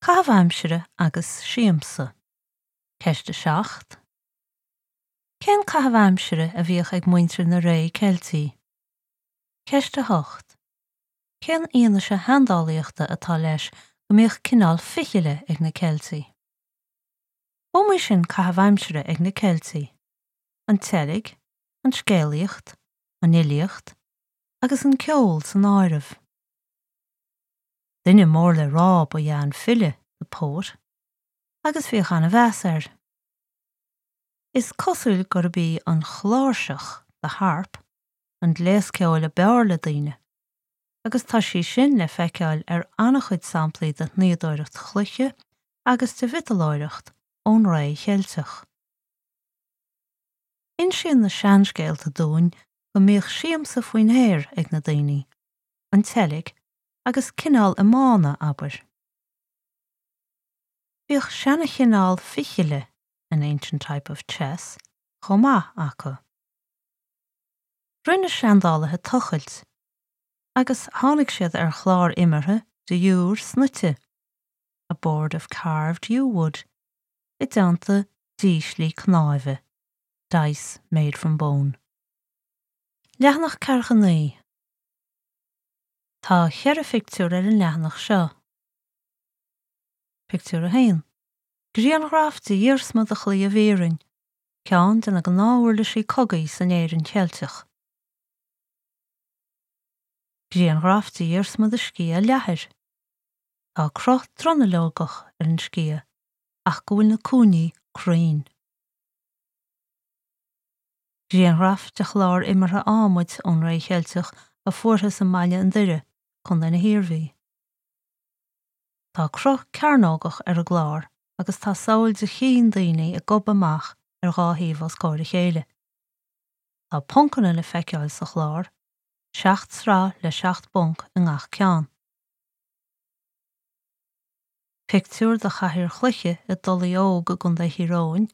Caitheamh aimsire agus siamsa. Ceist 7. Cén caitheamh aimsire a bhíodh ag muintir na ré Ceiltí? Ceist 8. Cén fhianaise sheandálaíochta atá leis go mbíodh cineál fichille ag na Ceiltigh? B'iomaí sin caitheamh aimsire ag na Ceiltigh, an tseilg, an scéalaíocht, an fhilíocht agus an ceol san áireamh. Duine mór le rá ba ea an file, the poet, agus bhíodh an-mheas air. Is cosúil gurb í an chláirseach, the harp, an gléas ceoil a b'fhearr le daoine, agus tá sí sin le feiceáil ar an-chuid samplaí de shnoíodóireacht chloiche agus de mhiotalóireacht ón ré Cheilteach. Insíonn na seanscéalta dúinn go mbíodh siamsa faoin aer ag na daoine, an tseilg agus cineál iomána, abair. Bhíodh seanachineál fichille, an ancient type of chess, chomh maith acu. Rinne seandálaithe tochailt agus tháinig siad ar chlár imeartha de iúr snoite, a board of carved yew wood, i dteannta díslí cnáimhe, dice made from bone. Leathanach 49. Tá cheithre phictiúr ar an leathanach seo. Pictiúr 1. Grianghraf de iarsma de chlaíomh iarainn, ceann de na gnáth-uirlisí cogaidh san Éirinn Cheilteach. Grianghraf de iarsma de sciath leathair. Tá cruth dronuilleogach ar an sciath ach go bhfuil na cúinní cruinn. Grianghraf de chlár imeartha adhmaid ón ré Cheilteach a fuarthas i mBaile an Doire, Co. na hIarmhí. Tá cruth cearnógach ar an gclár agus tá samhail de chinn daoine ag gobadh amach ar dhá thaobh os comhair a chéile. Tá poncanna le feiceáil sa chlár, seacht sraith le seacht bponc i ngach ceann. Pictiúr de chathaoir chloiche i dTulaigh Óg i gContae Thír Eoghain,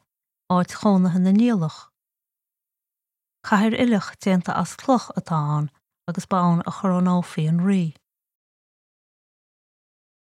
áit chónaithe na Niallach. Cathaoir uilleach déanta as cloch atá ann agus ba ann a chorónófaí an rí.